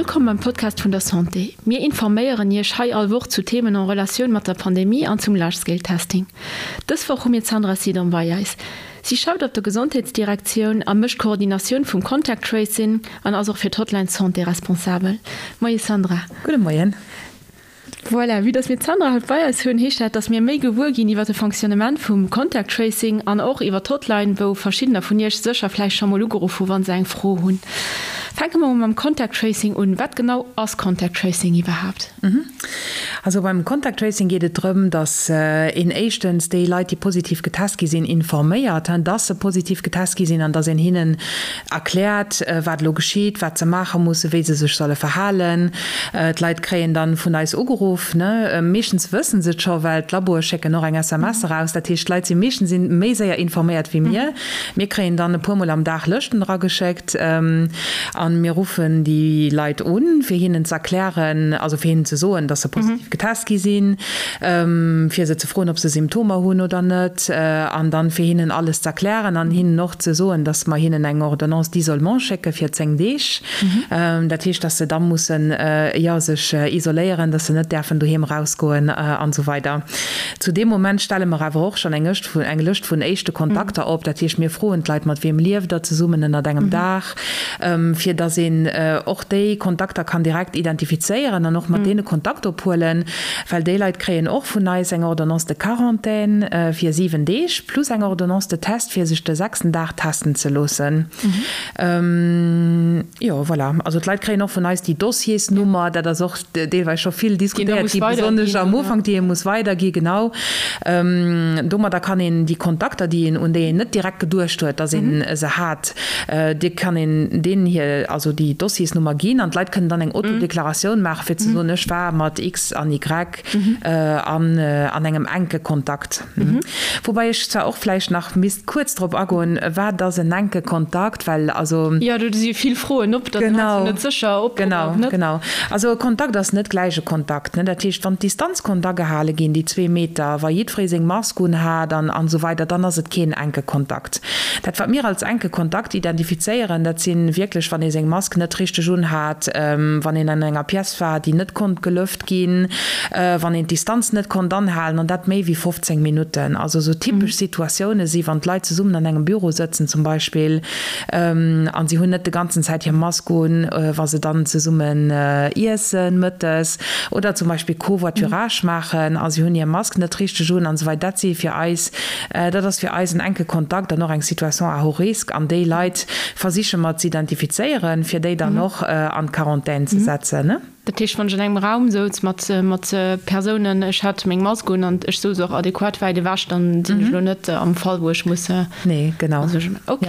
wëllkomm beim Podcast vun der Santé. Mir informéieren Iech hei all Woch zu Themen en Relatioun mat der Pandemie an zum Large Scale Testing. Dës Woch hu mir d'Sandra Sidon bei eis. Si schafft op der Gesondheetsdirektioun a mécht d'Koordinatioun vum Contact Tracing an ass och fir d'Hotline Santé responsabel. Moie Sandra. Gudde Moien. Voilà, vue dass mir d'Sandra haut bei eis hunn, heescht dat, dass mir méi gewuer ginn iwwer de Fonctionnement vum Contact Tracing an och iwwer d'Hotline, wou verschiddener vun Iech sécher vläicht scho mol ugeruff hu wa se eng Fro hunn. Fänke mer mol mam Contact Tracing un. Wat genau ass Contact Tracing iwwerhaapt? Also beim Contact Tracing geet et drëm, dass een éischtens déi Leit, déi positiv getest gi sinn, informéiert, dass se positiv getest gi sinn an dass een hinnen erkläert, wat elo geschitt, wat se maache mussen, wéi se sech solle verhalen. D'Leit kréien dann vun eis ugeruff. Meeschtens wëssen se et scho, well d'Laboe schécken och eng SMS eraus. Dat heescht, d'Leit si meeschtens méi séier informéiert wéi mir. Mir kréien dann e puer Mol am Dag Lëschten erageschéckt a mir ruffen déi Leit un, fir hinnen z'erklären, also fir hinnen ze soen, dass se positiv getest gi sinn, fir se ze froen, ob se Symptomer hunn oder net, an dann fir hinnen alles z'erklären an hinnen och ze soen, dass mer hinnen eng Ordonnance d'isolement schécke fir 10 Deeg. Dat heescht, dass se da mussen, jo, sech isoléieren, dass se net däerfen doheem erausgoen an esou weider. Zu deem Moment stelle mer awer och schonn eng eng Lëscht vun éischte Kontakter op. Dat heescht, mir froen d'Leit, mat wiem lieft der zesummen ënnert engem Daach, fir dass een och déi Kontakter kann direkt identifizéieren an och mat deene Kontakt ophuelen, well déi Leit kréien och vun eis eng Ordonnance de quarantaine fir 7 Deeg plus eng Ordonnance de test, fir sech de sechsten Dag testen ze loossen. Jo, voilà. Also d'Leit kréien och vun eis déi Dossiersnummer. Dat ass och deelweis scho vill diskutéiert gi, besonnesch am Ufank, déi ee muss weidergi, genau. Domadder kann een déi Kontakter, déi een, un déi een net direkt geduecht huet, datt ee se hat, déi kann een deenen hir, also déi Dossiersnummer ginn an d'Leit kënnen dann eng Autodeklaratioun maachen, fir ze soen, ech war mat X an Y an an engem enke Kontakt. Woubäi ech zwar och vläicht nach misst kuerz drop agoen, wat ass en enke Kontakt, well also. Jo, do si vill Froen op, da sinn se net sécher, ob oder ob net. Genau, genau. Also e Kontakt ass net gläich e Kontakt, ne. Dat heescht, wann d'Distanz konnt agehale ginn, déi zwee Meter, wa jiddweree seng Mask un hat an an esou weider, dann ass et keen enke Kontakt. Dat, wat mir als enke Kontakt identifizéieren, dat si wierklech, wann ee seng Mask net richteg un hat, wann een an enger Pièce war, déi net konnt gelëft ginn, wann een d'Distanz net konnt anhalen, an dat méi wéi 15 Minutten. Also esou typesch Situatioune si wann d'Leit zesummen an engem Büro sëtzen zum Beispill an si hunn net de ganzen Zäit hir Mask un, wa se dann zesummen iessen mëttes oder zum Beispill Covoiturage maachen a si hunn hir Mask net richteg un an esou weider. Dat si fir eis, dat ass fir eis en enke Kontakt an och eng Situation à haut risque an déi Leit versiche mer z'identifizéieren, fir déi dann och an d'Quarantän ze setzen. Dat heescht, wann ech an engem Raum souz mat mat Persounen, ech hat meng Mask un an ech souz och adequat wäit ewech, dann sinn ech elo net am Fall, wou ech muss. Nee, genau. Ok.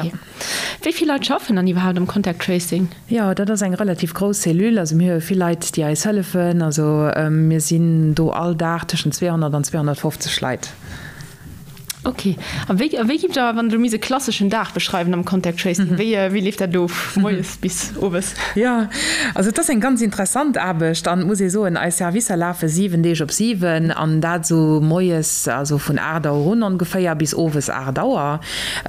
Wéi vill Leit schaffen dann iwwerhaapt am Contact Tracing? Jo, dat ass eng relativ grouss Cellule. Also mir hu vill Leit, déi eis hëllefen. Also mir sinn do all Dag tëschent 200 an 250 Leit. Ok. A wéi, a wéi giff der, wann der misst e klasseschen Dag beschreiwen am Contact Tracing, wéi, wéi leeft dat of, moies bis owes? Jo, also et ass eng ganz interessant Aarbecht an et muss ee soen, eis Servicer lafe 7 Deeg op 7 an dat esou moies, also vun 8 Auer un ongeféier bis owes 8 Auer.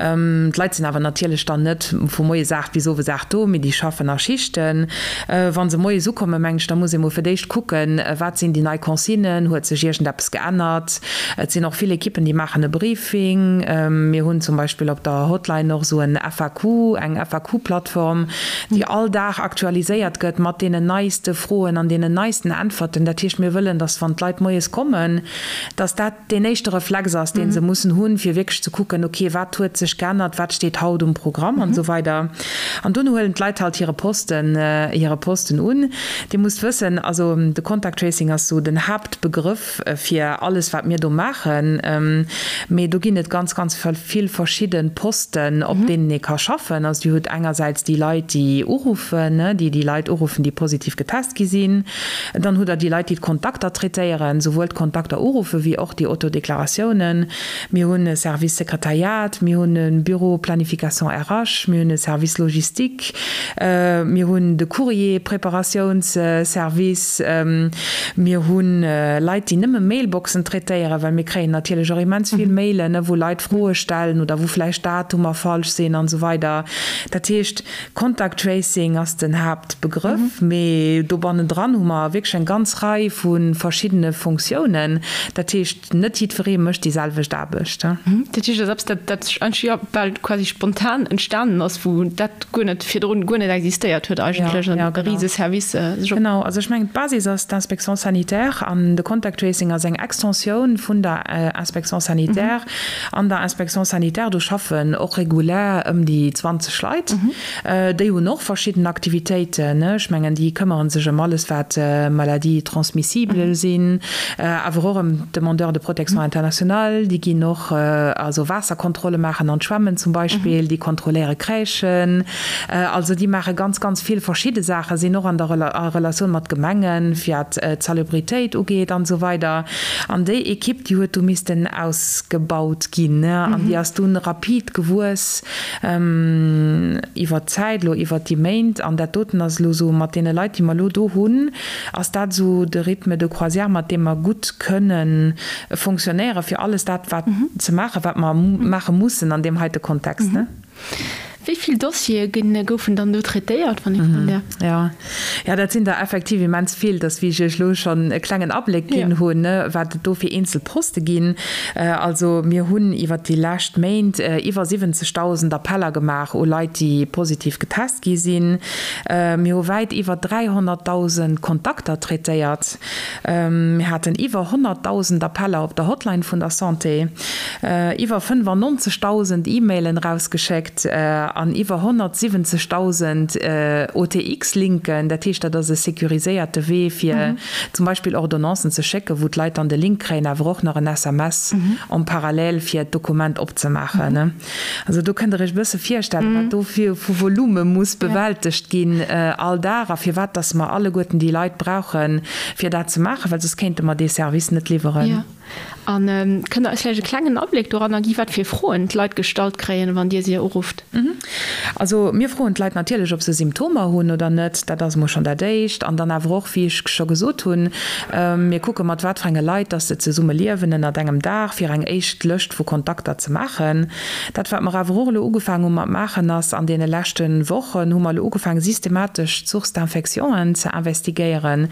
D'Leit sinn awer natierlech dann net vu moies 8 bis owes 8 do, mee déi schaffen a Schichten. Wa se moies ukommen, mengen ech, da muss ee mol fir d'éischt kucken, wat sinn déi nei Consignen, huet sech iergendeppes geännert? Et sinn och vill Ekippen, déi maachen e Briefing. Mir hunn zum Beispill op der Hotline och esou en FAQ, eng FAQ-Plattform, déi all Dag aktualiséiert gëtt mat deenen neiste Froen an deenen neisten Äntwerten. Dat heescht, mir wëllen, dass wann d'Leit moies kommen, dass dat deen éischte Reflex ass, dee se mussen hunn, fir wierklech ze kucken, okay, wat huet sech geännert, wat steet haut um Programm an esou weider. An dono huelen d'Leit halt hire Posten, hire Posten un. Dir musst wëssen, also de Contact Tracing ass esou den Haaptbegrëff, fir alles wat mir do maachen, mee do ginn et ganz ganz vill verschidde Posten op deenen ee ka schaffen. Also Dir hutt engersäits déi Leit déi uruffen, déi déi Leit uruffen déi positiv getest gi sinn. Dann hutt Der déi Leit déi d'Kontakter traitéieren, souwuel d'Kontakter uruffe wéi och déi Autodeklaratiounen. Mir hunn e Service Sekretariat, mir hunn e Büro Planification RH, mir hunn e Service Logistique, mir hunn de Courrier Preparatiounsservice, mir hu Leit, déi nëmme Mailboxen traitéieren, well mir kréien natierlech och immens vill Mailen. Mailen, wou Leit Froe stellen oder wou vläicht Datumer falsch sinn an esou weider. Dat heescht, Contact Tracing ass den Haaptbegrëff, mee do bannendran hu mer wierklech eng ganz Rei vu verschiddene Fonctiounen. Dat heescht, net jiddweree mécht déi selwecht Aarbecht. Dat heescht, dat ass eppes, dat dat eigentlech, jo, bal quasi spontan entstanen ass, wou dat guer net virdrun guer net existéiert huet eigentlech, an e Riseservice sech op. Genau, also ech mengen, d'Basis ass d'Inspection sanitaire an de Contact Tracing ass eng Extensioun vun der Inspection sanitaire. An der Inspection sanitaire, do schaffen och regulär ëm déi 20 Leit. Déi hunn och verschidden Aktivitéiten. Ech mengen, déi këmmere sech ëm alles, wat Maladies transmissibles sinn, awer och ëm d'Demandeurs de protection internationale. Déi ginn och also Waasserkontrolle maachen an d'Schwämmen zum Beispill. Déi kontrolléiere Crèchen. Also déi maache ganz, ganz vill verschidde Saachen, sinn och an der a Relatioun mat Gemengen, wat d'Salubritéit ugeet an esou weider. An déi Ekipp, déi huet du missten ausgebaut ginn an déi ass dunn rapid gewuess iwwert d'Zäit elo, iwwert déi Méint. An dat doten ass elo esou, mat deene Leit, déi mer elo do hunn, ass dat esou de Rythme de croisière, mat deem mer gutt kënne fonctionnéieren, fir alles dat wat ze maachen, wat mer maache mussen an deem heite Kontext. Wéi vill Dossiere goufen dann do traitéiert, wann ee froen däerf? Jo, jo, dat sinn der effektiv immens vill. Dass, wéi ech Iech elo schonn e klengen Abléck ginn hunn, wat et do fir eenzel Poste ginn. Also mir hunn iwwer déi lescht Méint iwwer 70.000 Appeller gemaach u Leit, déi positiv getest gi sinn. Mir hu wäit iwwer 300.000 Kontakter traitéiert. Mir haten iwwer 100.000 Appeller op der Hotline vun der Santé, iwwer 95.000 E-Mailen erausgeschéckt an iwwer 170.000 OTX-Linken. Dat heescht, dat ass e securiséierte Wee, fir zum Beispill Ordonnancen ze schécken, wou d'Leit dann de Link kréien, awer och nach en SMS en parallèle, fir d'Dokument opzemaachen. Also do kënnt Der Iech e bësse virstellen, wat do fir vu Volume muss bewältegt ginn all Dag a firwat dass mer alleguerten déi Leit brauchen, fir dat ze maachen, well soss kéinte mer dee Service net liwweren. Jo. A kënnt Der eis vläicht e klengen Abléck doranner gi wat fir Froen d'Leit gestallt kréien, wann Dir si urufft? Also mir froen d'Leit natierlech, ob se Symptomer hunn oder net. Dat ass emol schonn dat Éischt. An dann awer och, wéi ech scho gesot hunn, mir kucke mat wat fir enge Leit dass se zesumme liewen ënnert engem Daach, fir eng éischt Lëscht vu Kontakter ze maachen. Dat wat mer awer och elo ugefaangen hu mat maachen ass, an deene leschte Wochen hu mer elo ugefaangen systematesch d'Sources d'infectionen ze investigéieren.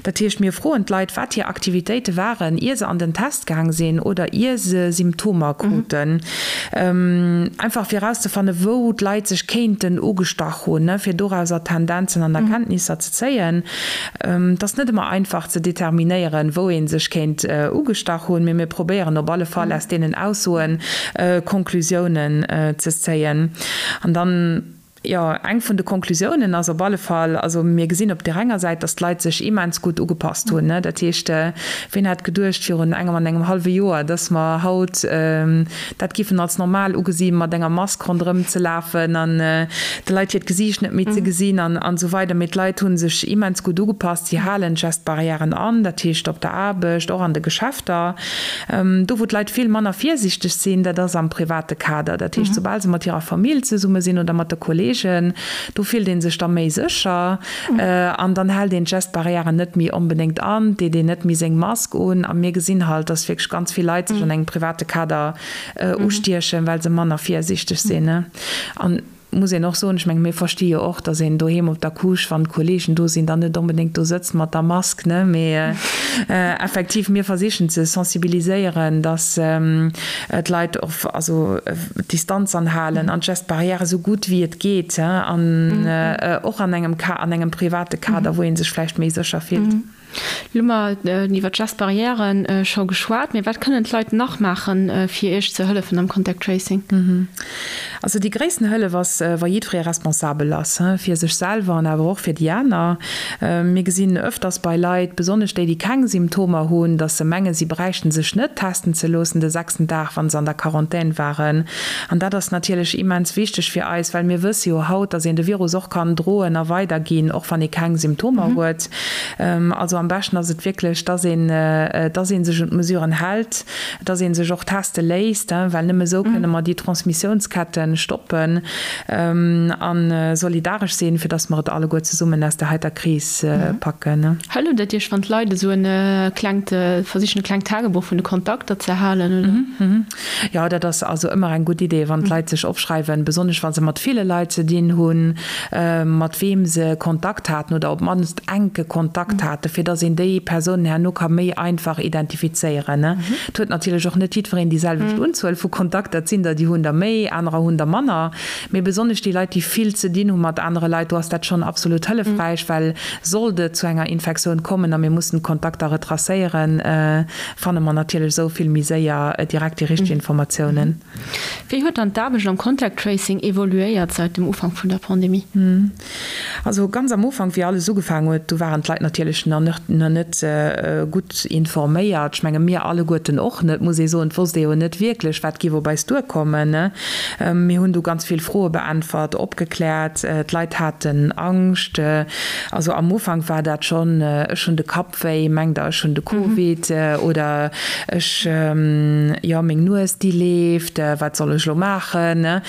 Dat heescht, mir froen d'Leit, wat hir Aktivitéite waren, ier se an den Test gaang sinn oder ier se Symptomer kruten. Einfach fir erauszefannen, wou d'Leit sech kéinten ugestach hunn, fir dorauser Tendenzen an Erkenntnisser ze zéien. Et ass net ëmmer einfach ze determinéieren, wou ee sech kéint ugestach hunn, mee mir probéieren op alle Fall aus deenen Aussoe Konklusiounen ze zéien. An dann, jo, eng vun de Konklusiounen ass op alle Fall, also mir gesinn op där enger Säit, datt d'Leit sech immens gutt ugepasst hunn. Dat heescht, ween hätt geduecht virun engem an engem hallwe Joer, datt mer haut dat giffen als normal ugesi mat enger Mask ronderëm ze lafen an de Leit hiert Gesiicht net méi ze gesinn an esou weider. Mee d'Leit hu sech immens gutt ugepasst. Si halen d'Gestbarrièren an, dat heescht op der Aarbecht, och an de Geschäfter. Do wou d'Leit vill manner virsiichteg sinn, dat ass am private Kader. Dat heescht, soubal se mat hirer Famill zesumme sinn oder mat de Kolleegen, do fillt ee sech da méi sécher an dann hält een d'Gestbarrièren net méi onbedéngt an, deet een net méi seng Mask un. A mir gesinn halt, dass wierklech ganz vill Leit sech an engem private Kader ustiechen, well se manner virsiichteg sinn. An muss een och soen, ech menge mir versti jo och, dass een doheem op der Couche, wann d'Kolleegen do sinn, dann net onbedéngt do sëtzt mat der Mask, ne. Mee effektiv, mir versichen ze sensibiliséieren, dass d'Leit och also d'Distanz anhalen an d'Gestes barrières esou gutt wéi et geet, an och an engem an engem private Kader, wou ee sech vläicht méi sécher fillt. Lo hu mer iwwer d'Gestes barrières scho geschwat, mee wat kënnen d'Leit nach maachen, fir Iech ze hëllefen am Contact Tracing? Also déi gréissten Hëllef ass, wa jiddweree responsabel ass, fir sech selwer an awer och fir déi aner. Mir gesinn öfters bei Leit, besonnesch déi, déi keng Symptomer hunn, dass se mengen, si bräichten sech net testen ze loossen de sechsten Dag, wa se an der Quarantän waren. An dat ass natierlech immens wichteg fir eis, well mir wësse jo haut, dass een de Virus och kann droen a weiderginn, och wann ee keng Symptomer huet. Also. am beschten ass et wierklech, dass een, dass ee sech un d'Mesuren hält, dass ee sech och teste léisst, well nëmme esou kënne mer déi Transmissiounsketten stoppen a solidaresch sinn, fir dass mer et alleguer zesummen aus där heiter Kris packen. Hëlleft et Iech, wann d'Leit esou e klengt, versichen e klengt Tagebuch vun de Kontakter ze halen, oder? Jo, dat ass also ëmmer eng gutt Idee, wann d'Leit sech opschreiwen, besonnesch wa se mat ville Leit ze dinn hunn, mat weem se Kontakt haten oder op d'mannst enke Kontakt haten, fir datt een déi Persounen herno ka méi einfach identifizéieren. Et huet natierlech och net jiddwereen déi selwecht Unzuel vu Kontakter. Et sinn der, déi hunn der méi, anerer hunn der manner. Mee besonnesch déi Leit, déi vill ze dinn hu mat anere Leit, do ass dat schonn absolut hëllefräich, well sollt et zu enger Infektioun kommen a mir mussen d'Kontakter retracéieren, fanne mer natierlech esou vill méi séier direkt déi richteg Informatiounen. Wéi huet dann d'Aarbecht am Contact Tracing evoluéiert säit dem Ufank vun der Pandemie? Also ganz am Ufank, wéi alles ugefaangen huet, do waren d'Leit natierlech nach net gutt informéiert. Ech menge mir alleguerten och net, muss ee soen. Et wosst ee jo net wierklech, wat géif op eis duerkommen. Mir hunn du ganz vill Froe beäntwert, opgekläert. D'Leit haten Angscht. Also am Ufank war dat schonn, ech hunn de Kapp Wéi, mengt der ech hunn de Covid oder ech, jo meng Nues déi leeft, wat soll ech elo maachen?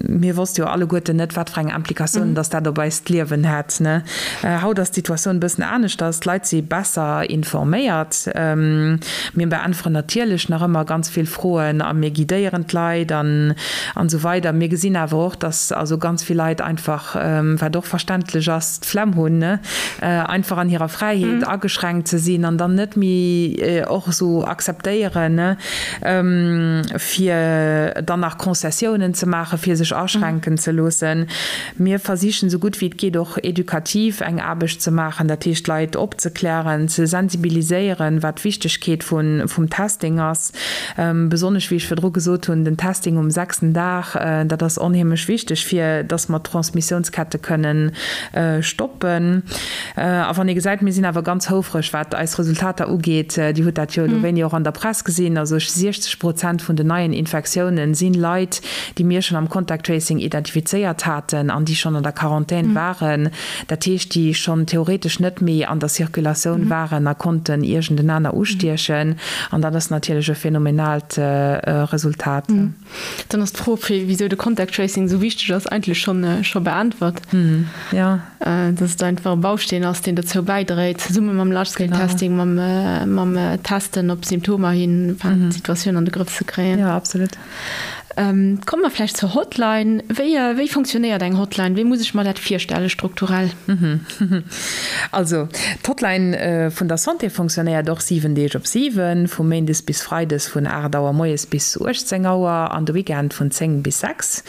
Mir wosste jo alleguerten net wat fir eng Implikatiounen dass dat op eist Liewen hätt. Haut ass d'Situatioun e bëssen aneschters, d'Leit si besser informéiert. Mir beäntweren natierlech nach ëmmer ganz vill Froen a mir guidéieren d'Leit an esou weider. Mir gesinn awer och, dass also ganz vill Leit einfach, wat och verständlech ass, d'Flemm hunn, einfach an hirer Fräiheet ageschränkt ze sinn an dann net méi och esou akzeptéieren, fir dann nach Concessiounen ze maachen, fir sech aschränken ze loossen. Mir versichen esou gutt wéi et geet och edukativ eng Aarbecht ze maachen, dat heescht d'Leit opzeklären, ze sensibiliséieren, wat d'Wichtegkeet vum Testing ass. Besonnesch, wéi ech virdru gesot hunn, den Testing um sechsten Dag, dat ass onheemlech wichteg, fir dass mer d'Transmissiounskette kënnen stoppen. A wann ee gesäit, mir sinn awer ganz houfreg, wat eis Resultater ugeet, Dir hutt dat jo elo wéini och an der Press gesinn, also 60 Prozent vun den neien Infektiounen si Leit, déi mir schonn am Contact Tracing identifizéiert haten an déi schonn an der Quarantän waren. Dat heescht, déi schonn theoretesch net méi an der Circulatioun waren a konnten iergendenaner ustiechen. An dat ass natierlech e phänomenaalt Resultat. Dann ass d'Fro, wisou de Contact Tracing esou wichteg ass, eigentlech scho beäntwert. Jo. Dass et einfach e Bausteen ass, deen dozou bäidréit, zesumme mam Large-Scale Testing, mam Testen op Symptomer hin, d'Situatioun an de Grëff ze kréien. Jo, absolut. Komme mer vläicht zur Hotline. Wéi, wéi fonctionnéiert eng Hotline? Wéi muss ech mer dat virstelle strukturell? Also, d'Hotline vun der Santé fonctionnéiert och 7 Deeg op 7, vu méindes bis freides vun 8 Auer moies bis 18 Auer an de Weekend vun 10 bis 6.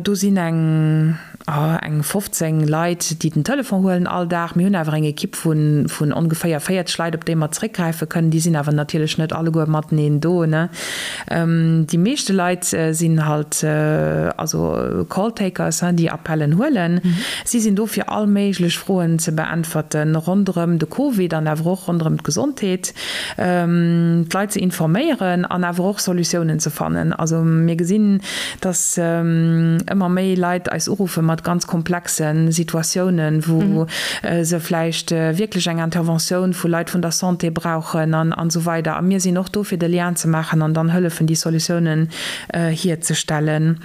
Do sinn eng. Eng 15 Leit, déi den Telefon huelen all Dag. Mir hunn awer eng Ekipp vun ongeféier 40 Leit, op déi mer zeréckgräife kënnen. Déi sinn awer natierlech net alleguer mateneen do. Déi meeschte Leit sinn halt also Call-Takers, déi Appellen huelen. Si sinn do fir all méiglech Froen ze beäntwerten ronderëm de Covid an awer och ronderëm d'Gesondheet, d'Leit ze informéieren an awer och Solutiounen ze fannen. Also mir gesinn, dass ëmmer méi Leit eis uruffe mat ganz komplexe Situatiounen, wou se vläicht wierklech eng Interventioun vu Leit vun der Santé brauchen an esou weider. A mir sinn och do, fir de Lien ze maachen an dann hëllefen, déi Solutiounen hierzestellen.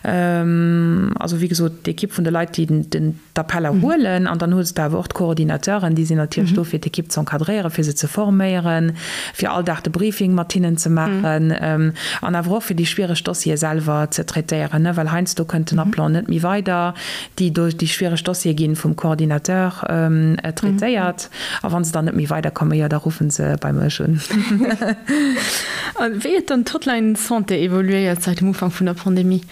Also, wéi gesot, d'Ekipp vun de Leit, déi den. d'Appeller huelen an dann hues de awer och d'Coordinateuren, déi sinn natierlech do fir d'Ekipp ze encadréieren, fir se ze forméieren, fir all Dag de Briefing mat hinnen ze maachen an awer och fir déi schwiereg Dossiere selwer ze traitéieren, well heiansdo kënnt den Appelant net méi weider. Déi déi schwiereg Dossiere gi vum Coordinateur traitéiert a wa se dann net méi weiderkommen, jo da ruffe se bei mech un. A wéi huet dann d'Hotline Santé evoluéiert säit dem Ufank vun der Pandemie?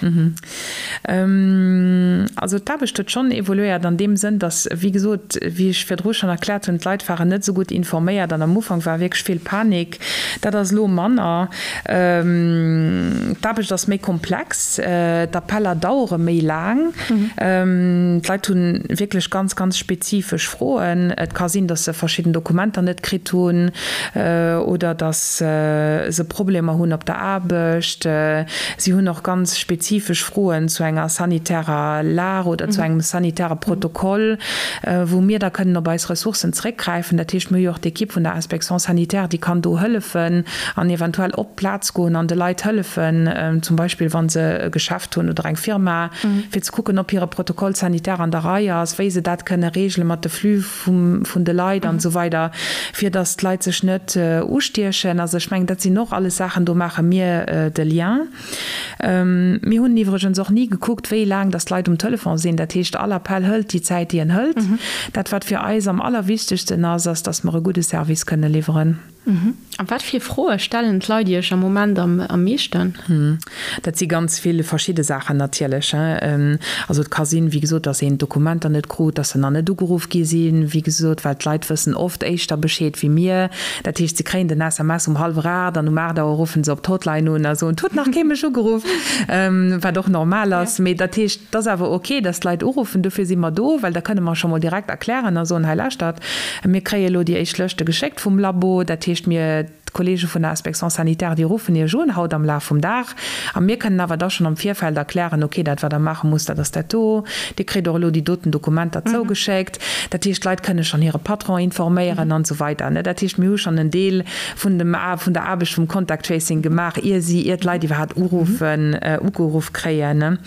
Also d'Aarbecht huet schonn evoluéiert an deem Sënn, datt, wéi gesot, wéi ech virdru schonn erkläert hunn, d'Leit waren net esou gutt informéiert an am Ufank war wierklech vill Panik. Dat ass elo manner. D'aarbecht ass méi komplex, d'Appeller dauere méi laang. D'Leit hu wierklech ganz, ganz spezifesch Froen. Et ka sinn, dass se verschidden Dokumenter net kritt hunn oder dass se Problemer hunn op der Aarbecht. Si hunn och ganz spezifesch Froen zu enger sanitärer Lag oder zu engem sanitäre Protokoll, wou mir da kënnen op eis Ressourcen zeréckgräifen. Dat heescht, mir hu jo och d'Ekipp vun der Inspection sanitaire, déi kann do hëllefen an eventuell op d'Plaz goen an de Leit hëllefen, zum Beispill wa se e Geschäft hunn oder eng Firma, fir ze kucken, ob hire Protocole sanitaire an der Rei ass, wéi se dat kënne regele mat de Flux vun de Leit an esou weider, fir datt d'Leit sech net ustiechen. Also ech mengen, dat sinn och alles Saachen, do maache mir de Lien. Mir hunn iwwregens och ni gekuckt, wéi laang datt d'Leit um Telefon sinn. Dat heescht, all Appell hëlt déi Zäit, déi en hëlt. Dat, wat fir eis am allerwichtegsten ass, ass, datt mer e gudde Service kënne liwweren. A wat fir Froe stellen d'Leit Iech am Moment am meeschten? Dat si ganz vill verschidde Saachen natierlech. Also et ka sinn, wéi gesot, datt een d'Dokumenter net krut, datt se nach net ugeruff gi sinn, wéi gesot, well d'Leit wëssen oft éischter Bescheed wéi mir. Dat heescht, se kréien den SMS um hallwer 8 an um 8 Auer ruffen se op d'Hotline un a soen, 't huet nach kee mech ugeruff, wat och normal ass. Mee dat heescht, 't ass awer ok, datt d'Leit uruffen, dofir si mer do, well da kënne mer scho mol direkt erklären a soen, hei lauschtert, mir kréie elo déi éischt Lëschte geschéckt vum Labo, dat heescht, mir, d'Kollege vun der Inspection sanitaire, déi ruffen Iech un haut am Laf vum Dag a mir kënnen awer da schonn am Virfeld erklären, ok, dat wat Der maache musst, dat ass dat do, Dir kritt och elo déi doten Dokumenter zougeschéckt. Dat heescht, d'Leit kënne schonn hire Patron informéieren an esou weider. Dat heescht, mir hu schonn en Deel vun dem, vun der Aarbecht vum Contact Tracing gemaach, ier si, ier d'Leit iwwerhaapt uruffen, ugeruff kréien.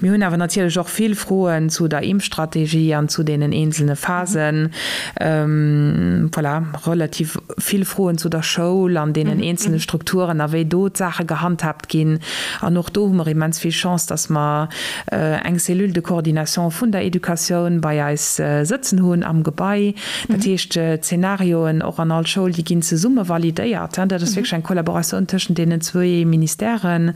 Mir hunn awer natierlech och vill Froen zu der Impfstrategie an zu deenen eenzelne Phasen. Voilà, relativ vill Froen zu der Schoul an deenen eenzelne Strukturen a wéi do d'Saache gehandhaabt ginn. An och do hu mer immens vill Chance, dass mer eng Cellule de coordination vun der Educatioun bei eis sëtzen hunn am Gebai. Dat heescht, d'Zenarioen och an all Schoul, déi ginn zesumme validéiert. Dat ass wierklech eng Kollaboratioun tëschent deenen zwee Ministèren,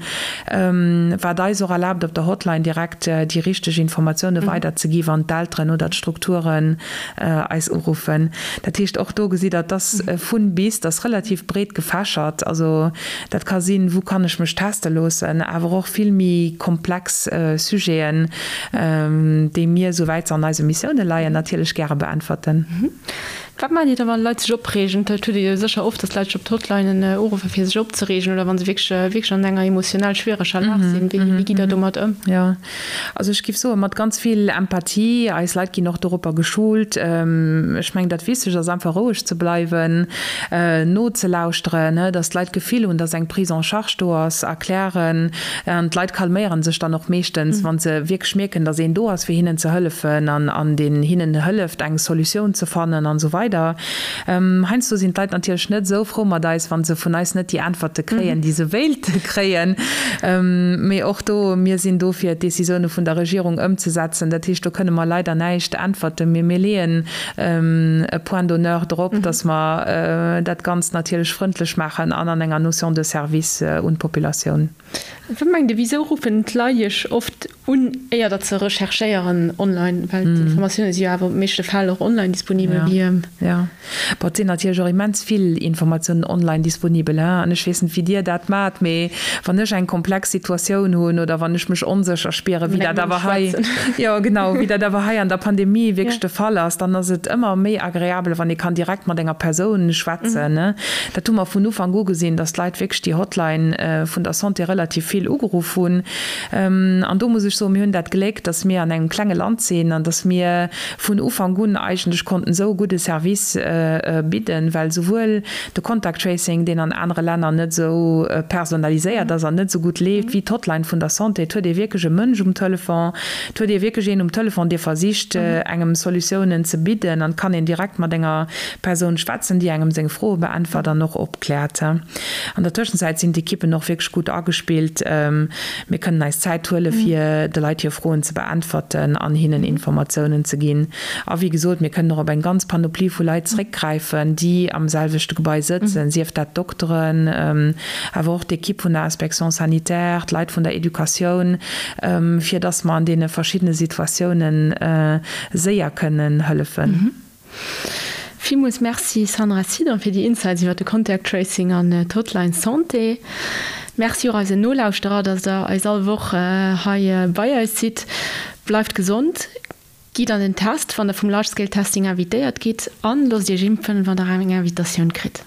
wat eis och erlaabt, op der Hotline direkt déi richteg Informatioune weiderzegi wann d'Elteren oder d'Strukturen eis uruffen. Dat heescht, och do gesitt Der, et ass vun bis, et ass relativ breet gefächert. Also dat ka sinn, wou kann ech mech teste loossen, awer och vill méi komplex Sujeten, déi mir, souwäit se an eise Missioune leien, natierlech gäre beäntwerten. Wat maacht Dir da wann Leit sech opreegen? Dat hutt Dir jo sécher oft, dass Leit sech op d'Hotlinen uruffen, fir sech opzereegen oder wa se wierklech, wierklech an enger emotionell schwiereger Lag sinn. Wéi, wéi gitt Der domat ëm? Jo, also ech géif soen, mat ganz vill Empathie. Eis Leit ginn och doropper geschult. Ech mengen, dat Wichtegst ass einfach roueg ze bleiwen, nozelauschteren, dass d'Leit d'Gefill hunn, dass eng Prise en charge do ass, erklären. An d'Leit calméiere sech dann och meeschtens, wa se wierklech mierken, dass een do ass, fir hinnen ze hëllefen an deen hinnen hëlleft, eng Solutioun ze fannen an esou weider. Heiansdo sinn d'Leit natierlech net esou frou mat eis, wa se vun eis net déi Äntwerte kréien, déi se wéilte kréien. Mee och do, mir sinn do, fir d'Decisioune vun der Regierung ëmzesetzen. Dat heescht, do kënne mer leider näischt äntwerten. Mee mir leeën e Point d'honneur drop, dass mer dat Ganzt natierlech frëndlech maachen an an enger Notion de service un d'Populatioun. Wat mengt Dir, wisou ruffen d'Leit Iech oft un, éier datt se recherchéieren online? Well d'Informatioune si jo awer op meeschte Fäll och online disponibel. Jo, jo. Bon, et sinn natierlech och immens vill Informatiounen online disponibel, hein. An ech weess net, wéi Dir dat maacht, mee wann ech eng komplex Situatioun hunn oder wann ech mech onsécher spieren, wéi dat awer hei, jo genau, wéi dat awer hei an der Pandemie wierklech de Fall ass, dann ass et ëmmer méi agreabel, wann ee kann direkt mat enger Persoun schwätzen. Dat hu mer vun Ufank u gesinn, dass d'Leit wierklech déi Hotline vun der Santé relativ vill ugeruff hunn. An do muss ech soen, mir hunn dat Gléck, dass mir an engem klenge Land sinn an dass mir vun Ufank un eigentlech konnten esou e gudde Service bidden, well souwuel de Contact Tracing, deen an anere Länner net esou personaliséiert ass an net esou gutt leeft wéi d'Hotline vun der Santé, et huet ee wierklech e Mënsch um Telefon, et huet ee wierklech een um Telefon, dee versicht, engem Solutiounen ze bidden an et kann een direkt mat enger Persoun schwätzen, déi engem seng Froe beäntwert an och opkläert. An der Tëschenzäit sinn d'Ekippen och wierklech gutt agespillt. Mir kënnen eis Zäit huele fir de Leit hir Froen ze beäntwerten an hinnen Informatiounen ze ginn. A wéi gesot, mir kënnen och op eng ganz Panoplie vu Leit zréckgräifen, déi am selwechte Gebai sëtzen, sief dat d'Dokteren, awer och d'Ekipp vun der Inspection sanitaire, d'Leit vun der Educatioun, fir dass mer an deene verschiddene Situatiounen séier kënnen hëllefen. Villmools Merci Sandra Sidon fir déi Insights iwwer de Contact Tracing an d'Hotline Santé. Merci och eisen Nolauschterer, dass der eis all Woch hei bei eis sidd. Bleift gesond, gitt an den Test, wann der vum Large Scale Testing invitéiert gitt an loosst Iech impfen, wann der eng Invitatioun kritt.